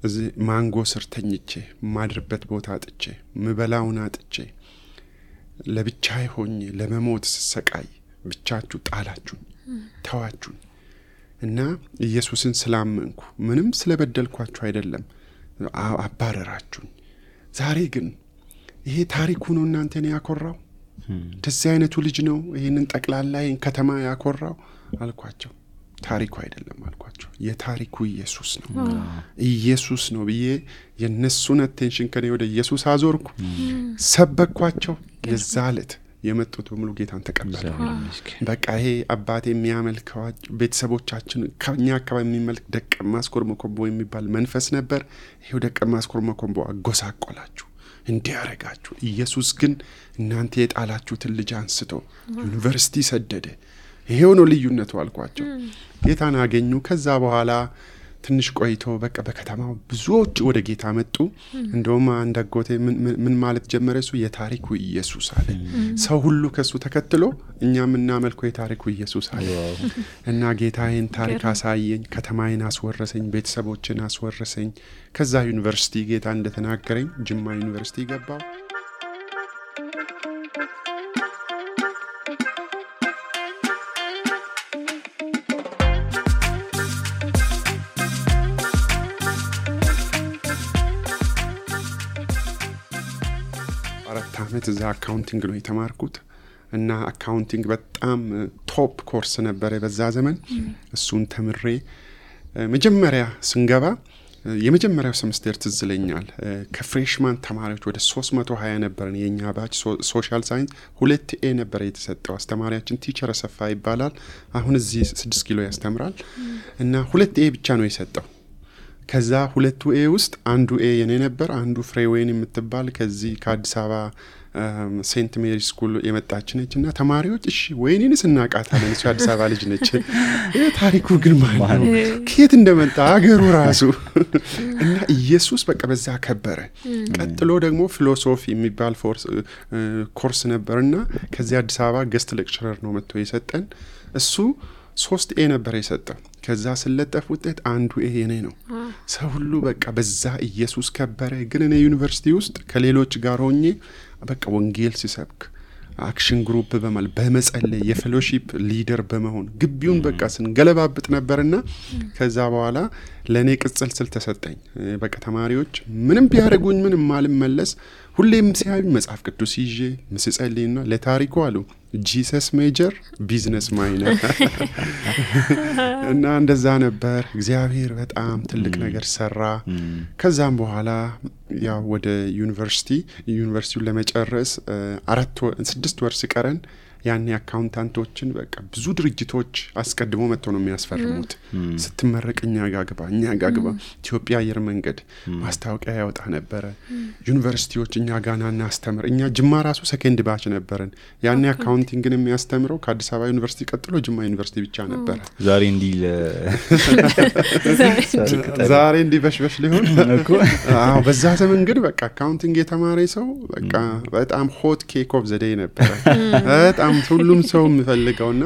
እዚህ ማንጎ ስር ተኝቼ ማድርበት ቦታ አጥቼ ምበላውን አጥቼ ለብቻዬ ሆኜ ለመሞት ስሰቃይ ብቻችሁ ጣላችሁኝ፣ ተዋችሁኝ እና ኢየሱስን ስላመንኩ ምንም ስለበደልኳችሁ አይደለም አባረራችሁኝ። ዛሬ ግን ይሄ ታሪኩ ነው እናንተን ያኮራው? እንደዚህ አይነቱ ልጅ ነው ይሄንን ጠቅላላ ይሄን ከተማ ያኮራው አልኳቸው። ታሪኩ አይደለም አልኳቸው። የታሪኩ ኢየሱስ ነው። ኢየሱስ ነው ብዬ የነሱን አቴንሽን ከኔ ወደ ኢየሱስ አዞርኩ። ሰበኳቸው። የዛለት የመጡት በሙሉ ጌታን ተቀበሉ። በቃ ይሄ አባቴ የሚያመልከው ቤተሰቦቻችን ከኛ አካባቢ የሚመልክ ደቀ ማስኮር መኮምቦ የሚባል መንፈስ ነበር። ይሄው ደቀ ማስኮር መኮምቦ አጎሳቆላችሁ፣ እንዲያረጋችሁ። ኢየሱስ ግን እናንተ የጣላችሁትን ልጅ አንስቶ ዩኒቨርሲቲ ሰደደ። ይሄው ነው ልዩነቱ አልኳቸው። ጌታን አገኙ። ከዛ በኋላ ትንሽ ቆይቶ በቃ በከተማው ብዙዎች ወደ ጌታ መጡ። እንደውም አንድ አጎቴ ምን ማለት ጀመረ? እሱ የታሪኩ ኢየሱስ አለ። ሰው ሁሉ ከሱ ተከትሎ እኛም እናመልከው የታሪኩ ኢየሱስ አለ እና ጌታዬን ታሪክ አሳየኝ፣ ከተማዬን አስወረሰኝ፣ ቤተሰቦችን አስወረሰኝ። ከዛ ዩኒቨርሲቲ ጌታ እንደተናገረኝ ጅማ ዩኒቨርሲቲ ገባው። እዛ አካውንቲንግ ነው የተማርኩት እና አካውንቲንግ በጣም ቶፕ ኮርስ ነበር በዛ ዘመን። እሱን ተምሬ መጀመሪያ ስንገባ የመጀመሪያው ሴሚስተር ትዝ ይለኛል ከፍሬሽማን ተማሪዎች ወደ 320 ነበርን የኛ ባች። ሶሻል ሳይንስ 2A ነበር የተሰጠው። አስተማሪያችን ቲቸር አሰፋ ይባላል። አሁን እዚህ 6 ኪሎ ያስተምራል እና 2A ብቻ ነው የሰጠው። ከዛ 2A ውስጥ አንዱ ኤ የኔ ነበር፣ አንዱ ፍሬዌን የምትባል ከዚህ ከአዲስ አበባ ሴንት ሜሪ ስኩል የመጣች ነች እና ተማሪዎች እሺ ወይኔንስ እናቃታለን እሱ አዲስ አበባ ልጅ ነች ታሪኩ ግን ማለት ነው ከየት እንደመጣ አገሩ ራሱ እና ኢየሱስ በቃ በዛ ከበረ። ቀጥሎ ደግሞ ፊሎሶፊ የሚባል ኮርስ ነበርና ከዚህ አዲስ አበባ ገስት ሌክቸረር ነው መጥቶ የሰጠን። እሱ 3 ኤ ነበር የሰጠው። ከዛ ስለጠፍ ውጤት አንዱ ኤ የኔ ነው። ሰው ሁሉ በቃ በዛ ኢየሱስ ከበረ። ግን እኔ ዩኒቨርሲቲ ውስጥ ከሌሎች ጋር ሆኜ በቃ ወንጌል ሲሰብክ አክሽን ግሩፕ በመጸለይ የፌሎሺፕ ሊደር በመሆን ግቢውን በቃ ስንገለባብጥ ነበርና ከዛ በኋላ ለኔ ቅጽል ስል ተሰጠኝ። በቃ ተማሪዎች ምንም ቢያደርጉኝ ምንም ማልመለስ ሁሌም ሲያዩኝ መጽሐፍ ቅዱስ ይዤ ምስጸልይና ለታሪኩ አሉ ጂሰስ ሜጀር ቢዝነስ ማይነር እና እንደዛ ነበር። እግዚአብሔር በጣም ትልቅ ነገር ሰራ። ከዛም በኋላ ያው ወደ ዩኒቨርሲቲውን ለመጨረስ 6 ወር ሲቀረን ያኔ አካውንታንቶችን በቃ ብዙ ድርጅቶች አስቀድሞ መጥተው ነው የሚያስፈርሙት። ስትመረቅ እኛ ጋር ግባ ኢትዮጵያ አየር መንገድ ማስታወቂያ ያወጣ ነበር። ዩኒቨርሲቲዎች እኛ ጋር ናና አስተምር። እኛ ጅማ ራሱ ሰከንድ ባች ነበርን። ያኔ አካውንቲንግን የሚያስተምረው ከአዲስ አበባ ዩኒቨርሲቲ ቀጥሎ ጅማ ዩኒቨርሲቲ ብቻ ነበር። ዛሬ እንዲህ በሽበሽ ሊሆን እኮ በዛ ዘመን ግን በቃ አካውንቲንግ የተማረ ሰው በቃ በጣም ሆት ኬክ ኦፍ ዘ ዴይ ነበር። በጣም ሁሉም ሰው የሚፈልገውና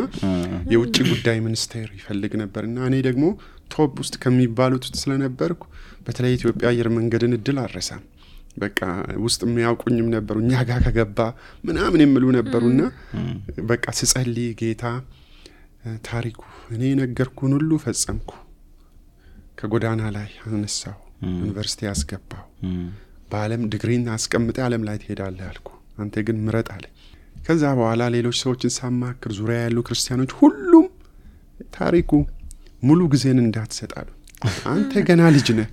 የውጭ ጉዳይ ሚኒስቴር ይፈልግ ነበርና እኔ ደግሞ ቶፕ ውስጥ ከሚባሉት ስለነበርኩ በተለይ ኢትዮጵያ አየር መንገድን እድል አረሳም። በቃ ውስጥ የሚያውቁኝም ነበሩ እኛ ጋር ከገባ ምናምን የሚሉ ነበሩና በቃ ስጸልይ ጌታ ታሪኩ እኔ ነገርኩን ሁሉ ፈጸምኩ። ከጎዳና ላይ አነሳው፣ ዩኒቨርሲቲ አስገባው፣ በዓለም ዲግሪን አስቀምጠ ዓለም ላይ ትሄዳለህ አልኩ። አንተ ግን ምረጥ አለ። ከዛ በኋላ ሌሎች ሰዎችን ሳማክር ዙሪያ ያሉ ክርስቲያኖች ሁሉም ታሪኩ ሙሉ ጊዜን እንዳትሰጣሉ፣ አንተ ገና ልጅ ነህ፣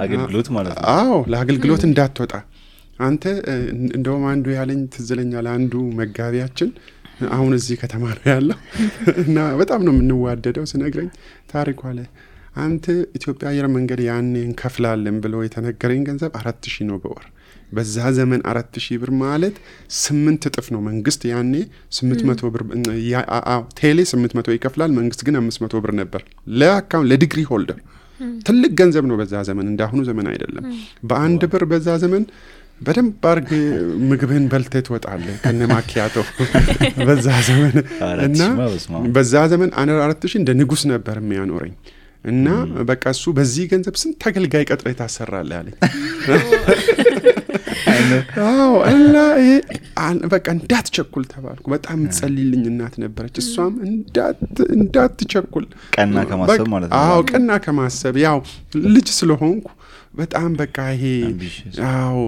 አገልግሎት ማለት ነው። ለአገልግሎት እንዳትወጣ አንተ እንደውም አንዱ ያለኝ ትዝለኛል። አንዱ መጋቢያችን አሁን እዚህ ከተማ ነው ያለው እና በጣም ነው የምንዋደደው። ስነግረኝ ታሪኩ አለ አንተ ኢትዮጵያ አየር መንገድ ያኔ እንከፍላለን ብሎ የተነገረኝ ገንዘብ 4000 ነው በወር። በዛ ዘመን 4000 ብር ማለት 8 እጥፍ ነው። መንግስት ያኔ 800 ብር ቴሌ 800 ይከፍላል፣ መንግስት ግን 500 ብር ነበር ለአካውንት ለዲግሪ ሆልደር። ትልቅ ገንዘብ ነው በዛ ዘመን፣ እንዳሁኑ ዘመን አይደለም። በአንድ ብር በዛ ዘመን በደንብ አርግ ምግብን በልተህ ትወጣለህ ከነማኪያቶ በዛ ዘመን እና በዛ ዘመን 4000 እንደ ንጉስ ነበር የሚያኖረኝ እና በቃ እሱ በዚህ ገንዘብ ስንት አገልጋይ ቀጥረህ ታሰራለህ አለኝ። እና በቃ እንዳትቸኩል ተባልኩ። በጣም ጸልይልኝ እናት ነበረች። እሷም እንዳትቸኩል ቀና ከማሰብ ማለት ነው። ቀና ከማሰብ ያው ልጅ ስለሆንኩ በጣም በቃ ይሄ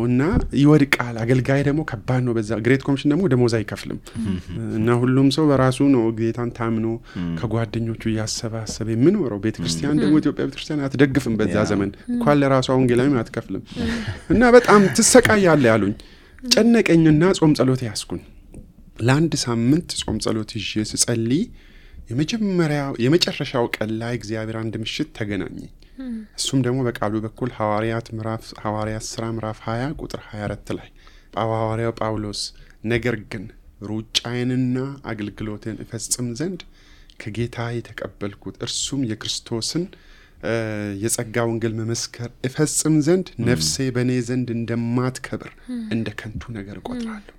እና ይወድቃል። አገልጋይ ደግሞ ከባድ ነው። በዛ ግሬት ኮሚሽን ደግሞ ደሞዝ አይከፍልም እና ሁሉም ሰው በራሱ ነው ጌታን ታምኖ ከጓደኞቹ እያሰባሰበ የሚኖረው። ቤተክርስቲያን ደግሞ ኢትዮጵያ ቤተክርስቲያን አትደግፍም በዛ ዘመን እንኳን ለራሷ ወንጌላዊ አትከፍልም እና በጣም ትሰቃያለህ ያሉኝ። ጨነቀኝና ጾም ጸሎት ያስኩኝ። ለአንድ ሳምንት ጾም ጸሎት ይዤ ስጸልይ የመጨረሻው ቀን ላይ እግዚአብሔር አንድ ምሽት ተገናኘኝ። እሱም ደግሞ በቃሉ በኩል ሐዋርያት ሥራ ምዕራፍ 20 ቁጥር 24 ላይ ሐዋርያው ጳውሎስ ነገር ግን ሩጫዬንና አገልግሎቴን እፈጽም ዘንድ ከጌታ የተቀበልኩት እርሱም የክርስቶስን የጸጋ ወንጌል መመስከር እፈጽም ዘንድ ነፍሴ በእኔ ዘንድ እንደማትከብር እንደ ከንቱ ነገር እቆጥራለሁ።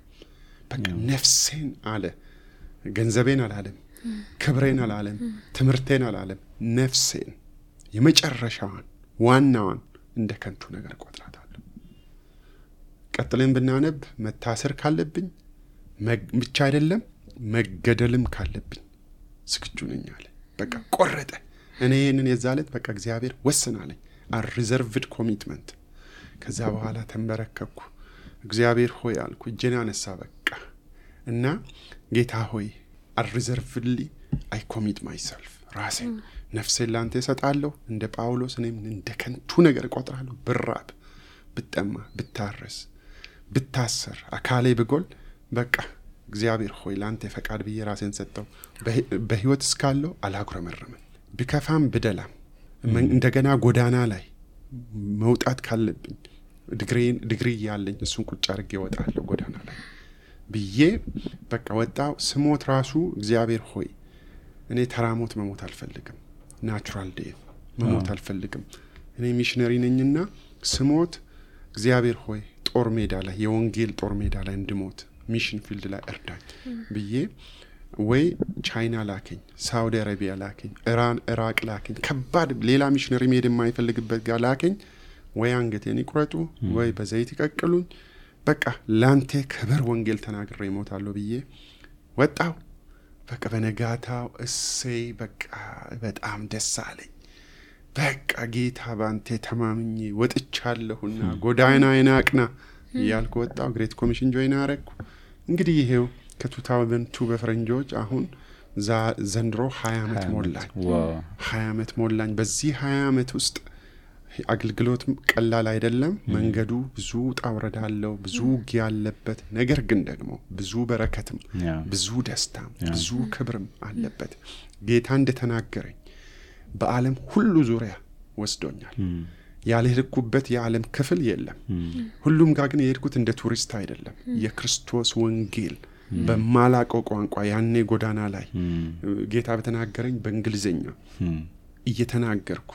በቃ ነፍሴን አለ፣ ገንዘቤን አላለም፣ ክብሬን አላለም፣ ትምህርቴን አላለም፣ ነፍሴን የመጨረሻዋን ዋናዋን እንደ ከንቱ ነገር እቆጥራታለሁ። ቀጥለን ብናነብ መታሰር ካለብኝ ብቻ አይደለም መገደልም ካለብኝ ዝግጁ ነኝ አለ። በቃ ቆረጠ። እኔ ይህንን የዛለት በቃ እግዚአብሔር ወስናለኝ። ሪዘርቭድ ኮሚትመንት። ከዛ በኋላ ተንበረከኩ። እግዚአብሔር ሆይ አልኩ፣ እጄን አነሳ በቃ እና ጌታ ሆይ ሪዘርቭድሊ አይ ኮሚት ማይሰልፍ ራሴን ነፍሴን ላንተ እሰጣለሁ። እንደ ጳውሎስ እኔም እንደ ከንቱ ነገር እቆጥራለሁ። ብራብ፣ ብጠማ፣ ብታረስ፣ ብታሰር፣ አካሌ ብጎል በቃ እግዚአብሔር ሆይ ላንተ ፈቃድ ብዬ ራሴን ሰጠው። በህይወት እስካለሁ አላጉረመረምም። ቢከፋም ብደላም እንደገና ጎዳና ላይ መውጣት ካለብኝ ዲግሪ ያለኝ እሱን ቁጭ አድርጌ እወጣለሁ ጎዳና ላይ ብዬ በቃ ወጣው። ስሞት ራሱ እግዚአብሔር ሆይ እኔ ተራሞት መሞት አልፈልግም፣ ናቹራል ዴት መሞት አልፈልግም። እኔ ሚሽነሪ ነኝና ስሞት እግዚአብሔር ሆይ ጦር ሜዳ ላይ የወንጌል ጦር ሜዳ ላይ እንድሞት ሚሽን ፊልድ ላይ እርዳኝ ብዬ ወይ ቻይና ላከኝ፣ ሳውዲ አረቢያ ላከኝ፣ ኢራቅ ላከኝ፣ ከባድ ሌላ ሚሽነሪ መሄድ የማይፈልግበት ጋር ላከኝ። ወይ አንገቴን ይቁረጡ ወይ በዘይት ይቀቅሉኝ፣ በቃ ላንተ ክብር ወንጌል ተናግሬ እሞታለሁ ብዬ ወጣው። በቃ በነጋታው እሰይ በቃ በጣም ደስ አለኝ። በቃ ጌታ ባንተ ተማምኜ ወጥቻለሁና ጎዳናዬን አቅና እያልኩ ወጣው። ግሬት ኮሚሽን ጆይን አረኩ። እንግዲህ ይሄው ከ2002 በፈረንጆች አሁን ዘንድሮ 20 ዓመት ሞላኝ። 20 ዓመት ሞላኝ። በዚህ 20 ዓመት ውስጥ አገልግሎት ቀላል አይደለም። መንገዱ ብዙ ጣውረድ አለው፣ ብዙ ውጊያ አለበት። ነገር ግን ደግሞ ብዙ በረከትም ብዙ ደስታም ብዙ ክብርም አለበት። ጌታ እንደተናገረኝ በዓለም ሁሉ ዙሪያ ወስዶኛል። ያልሄድኩበት የዓለም ክፍል የለም። ሁሉም ጋር ግን የሄድኩት እንደ ቱሪስት አይደለም። የክርስቶስ ወንጌል በማላቀው ቋንቋ ያኔ ጎዳና ላይ ጌታ በተናገረኝ በእንግሊዘኛ እየተናገርኩ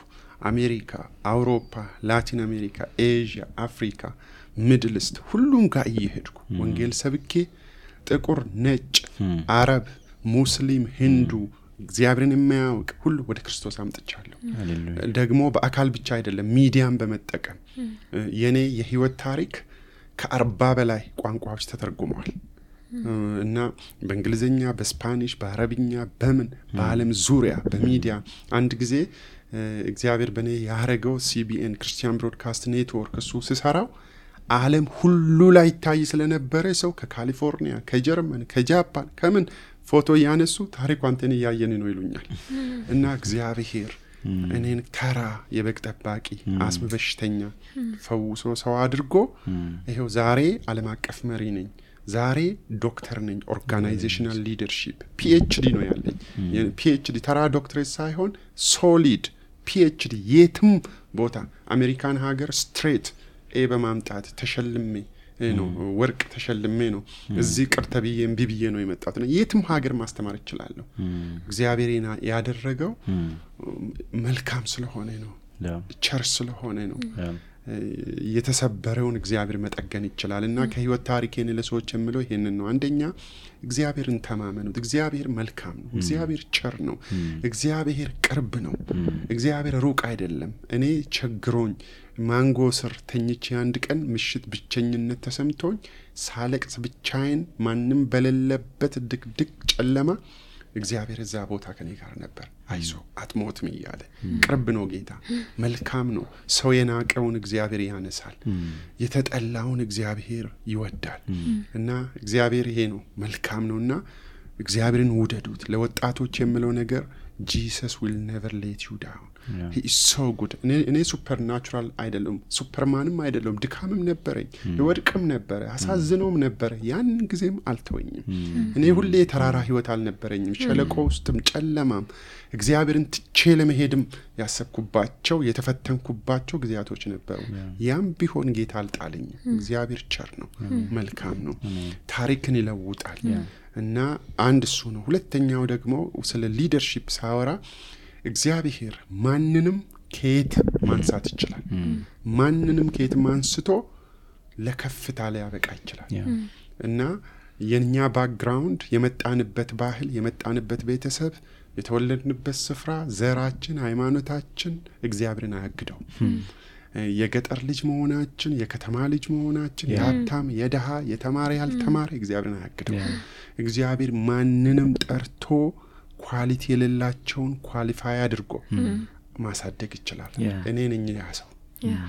አሜሪካ፣ አውሮፓ፣ ላቲን አሜሪካ፣ ኤዥያ፣ አፍሪካ፣ ሚድል ኢስት ሁሉም ጋር እየሄድኩ ወንጌል ሰብኬ ጥቁር፣ ነጭ፣ አረብ፣ ሙስሊም፣ ሂንዱ እግዚአብሔርን የሚያውቅ ሁሉ ወደ ክርስቶስ አምጥቻለሁ። ደግሞ በአካል ብቻ አይደለም ሚዲያን በመጠቀም የኔ የህይወት ታሪክ ከ40 በላይ ቋንቋዎች ተተርጉመዋል እና በእንግሊዘኛ፣ በስፓኒሽ፣ በአረብኛ፣ በምን በዓለም ዙሪያ በሚዲያ አንድ ጊዜ እግዚአብሔር በኔ ያረገው ሲቢኤን ክርስቲያን ብሮድካስት ኔትወርክ እሱ ሲሰራው ዓለም ሁሉ ላይ ታይ ስለነበረ ሰው ከካሊፎርኒያ፣ ከጀርመን፣ ከጃፓን ከምን ፎቶ ያነሱ ታሪኩ አንተን ያየን ነው ይሉኛል። እና እግዚአብሔር እኔን ተራ የበግ ጠባቂ አስም በሽተኛ ፈውሶ ሰው አድርጎ ይሄው ዛሬ ዓለም አቀፍ መሪ ነኝ። ዛሬ ዶክተር ነኝ። ኦርጋናይዜሽናል ሊደርሺፕ ፒኤችዲ ነው ያለኝ። ፒኤችዲ ተራ ዶክተሬት ሳይሆን ሶሊድ ፒኤችዲ የትም ቦታ አሜሪካን ሀገር ስትሬት ኤ በማምጣት ተሸልሜ ነው ወርቅ ተሸልሜ ነው እዚህ ቅርተብዬ እምቢብዬ ነው የመጣሁት። የትም ሀገር ማስተማር እችላለሁ። እግዚአብሔር ያደረገው መልካም ስለሆነ ነው፣ ቸር ስለሆነ ነው። የተሰበረውን እግዚአብሔር መጠገን ይችላልና ከህይወት ታሪኬን ለሰዎች የምለው ይሄንን ነው። አንደኛ እግዚአብሔርን ተማመኑት። እግዚአብሔር መልካም ነው። እግዚአብሔር ቸር ነው። እግዚአብሔር ቅርብ ነው። እግዚአብሔር ሩቅ አይደለም። እኔ ቸግሮኝ ማንጎ ስር ተኝቼ አንድ ቀን ምሽት ብቸኝነት ተሰምቶኝ ሳለቅስ ብቻዬን ማንም በሌለበት ድቅድቅ ጨለማ እግዚአብሔር እዛ ቦታ ከኔ ጋር ነበር። አይዞ አትሞትም እያለ ቅርብ ነው ጌታ፣ መልካም ነው። ሰው የናቀውን እግዚአብሔር ያነሳል፣ የተጠላውን እግዚአብሔር ይወዳል። እና እግዚአብሔር ይሄ ነው፣ መልካም ነውና እግዚአብሔርን ውደዱት። ለወጣቶች የምለው ነገር Jesus will never let you down. He is so good. እኔ ሱፐርናቹራል አይደለም፣ ሱፐርማንም አይደለም። ድካምም ነበረኝ፣ ወድቅም ነበረ፣ አሳዝነውም ነበረ። ያን ጊዜም አልተወኝም። እኔ ሁሌ ተራራ ህይወት አልነበረኝም። ሸለቆ ውስጥም ጨለማም እግዚአብሔርን ትቼ ለመሄድም ያሰብኩባቸው የተፈተንኩባቸው ጊዜያቶች ነበሩ። ያም ቢሆን ጌታ አልጣለኝም። እግዚአብሔር ቸር ነው፣ መልካም ነው፣ ታሪክን ይለውጣል። እና አንድ እሱ ነው። ሁለተኛው ደግሞ ስለ ሊደርሺፕ ሳወራ እግዚአብሔር ማንንም ከየት ማንሳት ይችላል። ማንንም ከየት ማንስቶ ለከፍታ ላይ ያበቃ ይችላል። እና የኛ ባክግራውንድ የመጣንበት ባህል፣ የመጣንበት ቤተሰብ፣ የተወለድንበት ስፍራ፣ ዘራችን፣ ሃይማኖታችን እግዚአብሔርን አያግደው። የገጠር ልጅ መሆናችን፣ የከተማ ልጅ መሆናችን፣ የሀብታም የደሃ የተማረ ያልተማረ እግዚአብሔርን አያግደው። እግዚአብሔር ማንንም ጠርቶ ኳሊቲ የሌላቸውን ኳሊፋይ አድርጎ ማሳደግ ይችላል። እኔ ነኝ ያ ሰው፣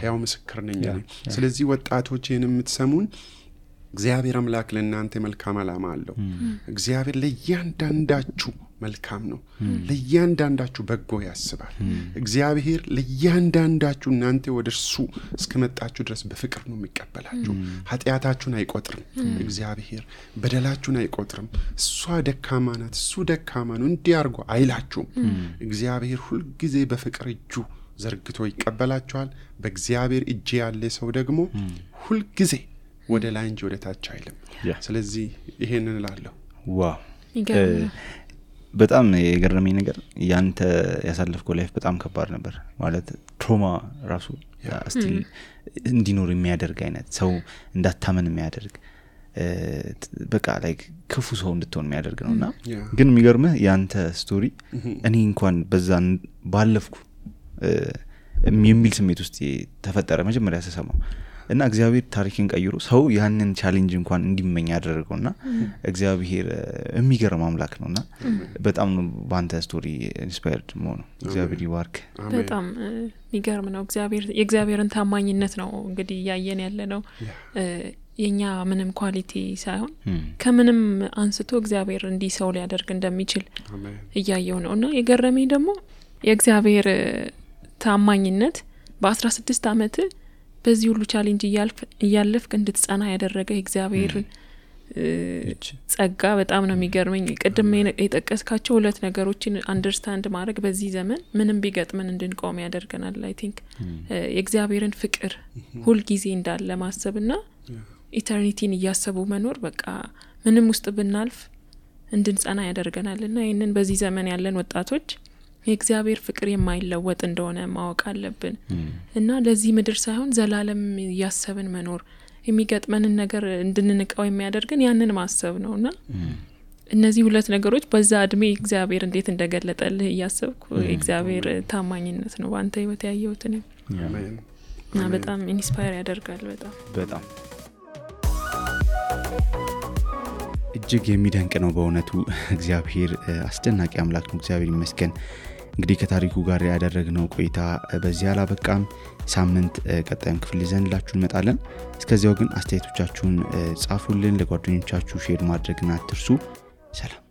ያው ምስክር ነኝ። ስለዚህ ወጣቶች ይህን የምትሰሙን እግዚአብሔር አምላክ ለእናንተ መልካም ዓላማ አለው። እግዚአብሔር ለእያንዳንዳችሁ መልካም ነው። ለእያንዳንዳችሁ በጎ ያስባል። እግዚአብሔር ለእያንዳንዳችሁ እናንተ ወደ እርሱ እስከመጣችሁ ድረስ በፍቅር ነው የሚቀበላችሁ። ኃጢአታችሁን አይቆጥርም። እግዚአብሔር በደላችሁን አይቆጥርም። እሷ ደካማ ናት፣ እሱ ደካማ ነው እንዲያርጎ አይላችሁም። እግዚአብሔር ሁልጊዜ በፍቅር እጁ ዘርግቶ ይቀበላችኋል። በእግዚአብሔር እጅ ያለ ሰው ደግሞ ሁልጊዜ ወደ ላይ እንጂ ወደ ታች አይልም። ስለዚህ ይሄንን እላለሁ። ዋው በጣም የገረመኝ ነገር ያንተ ያሳለፍከው ላይፍ በጣም ከባድ ነበር ማለት ትሮማ ራሱ ስቲል እንዲኖር የሚያደርግ አይነት ሰው እንዳታመን የሚያደርግ በቃ ላይክ ክፉ ሰው እንድትሆን የሚያደርግ ነውና ግን የሚገርምህ ያንተ ስቶሪ እኔ እንኳን በዛን ባለፍኩ የሚል ስሜት ውስጥ ተፈጠረ መጀመሪያ ተሰማው እና እግዚአብሔር ታሪክን ቀይሮ ሰው ያንን ቻሌንጅ እንኳን እንዲመኝ ያደረገውና እግዚአብሔር የሚገርም አምላክ ነውና በጣም ባንተ ስቶሪ ኢንስፓየርድ ሆኖ እግዚአብሔር ይባርክ። በጣም የሚገርም ነው። የእግዚአብሔርን ታማኝነት ነው እንግዲህ ያየን ያለ ነው። የኛ ምንም ኳሊቲ ሳይሆን ከምንም አንስቶ እግዚአብሔር እንዲህ ሰው ሊያደርግ እንደሚችል እያየው ነውና የገረመኝ ደግሞ የእግዚአብሔር ታማኝነት በ16 አመት በዚህ ሁሉ ቻሌንጅ እያለፍክ እንድትጸና ያደረገ እግዚአብሔር ጸጋ በጣም ነው የሚገርመኝ። ቅድም የጠቀስካቸው ሁለት ነገሮችን አንደርስታንድ ማድረግ በዚህ ዘመን ምንም ቢገጥመን እንድንቆም ያደርገናል። አይ ቲንክ የእግዚአብሔርን ፍቅር ሁሉ ጊዜ እንዳለ ማሰብና ኢተርኒቲን እያሰቡ መኖር በቃ ምንም ውስጥ ብናልፍ እንድንጸና ያደርገናልና ይሄንን በዚህ ዘመን ያለን ወጣቶች የእግዚአብሔር ፍቅር የማይለወጥ እንደሆነ ማወቅ አለብን እና ለዚህ ምድር ሳይሆን ዘላለም ያሰብን መኖር የሚገጥመንን ነገር እንድንንቀው የሚያደርገን ያንን ማሰብ ነውና እነዚህ ሁለት ነገሮች በዛ እድሜ እግዚአብሔር እንዴት እንደገለጠልህ ያሰብኩ የእግዚአብሔር ታማኝነት ነው ባንተ ህይወት ያየሁት ነው እና በጣም ኢንስፓየር ያደርጋል። በጣም እጅግ የሚደንቅ ነው በእውነቱ። እግዚአብሔር አስደናቂ አምላክ ነው። እግዚአብሔር ይመስገን። እንግዲህ ከታሪኩ ጋር ያደረግነው ቆይታ በዚህ አላበቃም። ሳምንት ቀጣዩን ክፍል ይዘንላችሁ እንመጣለን። እስከዚያው ግን አስተያየቶቻችሁን ጻፉልን፣ ለጓደኞቻችሁ ሼር ማድረግና አትርሱ። ሰላም።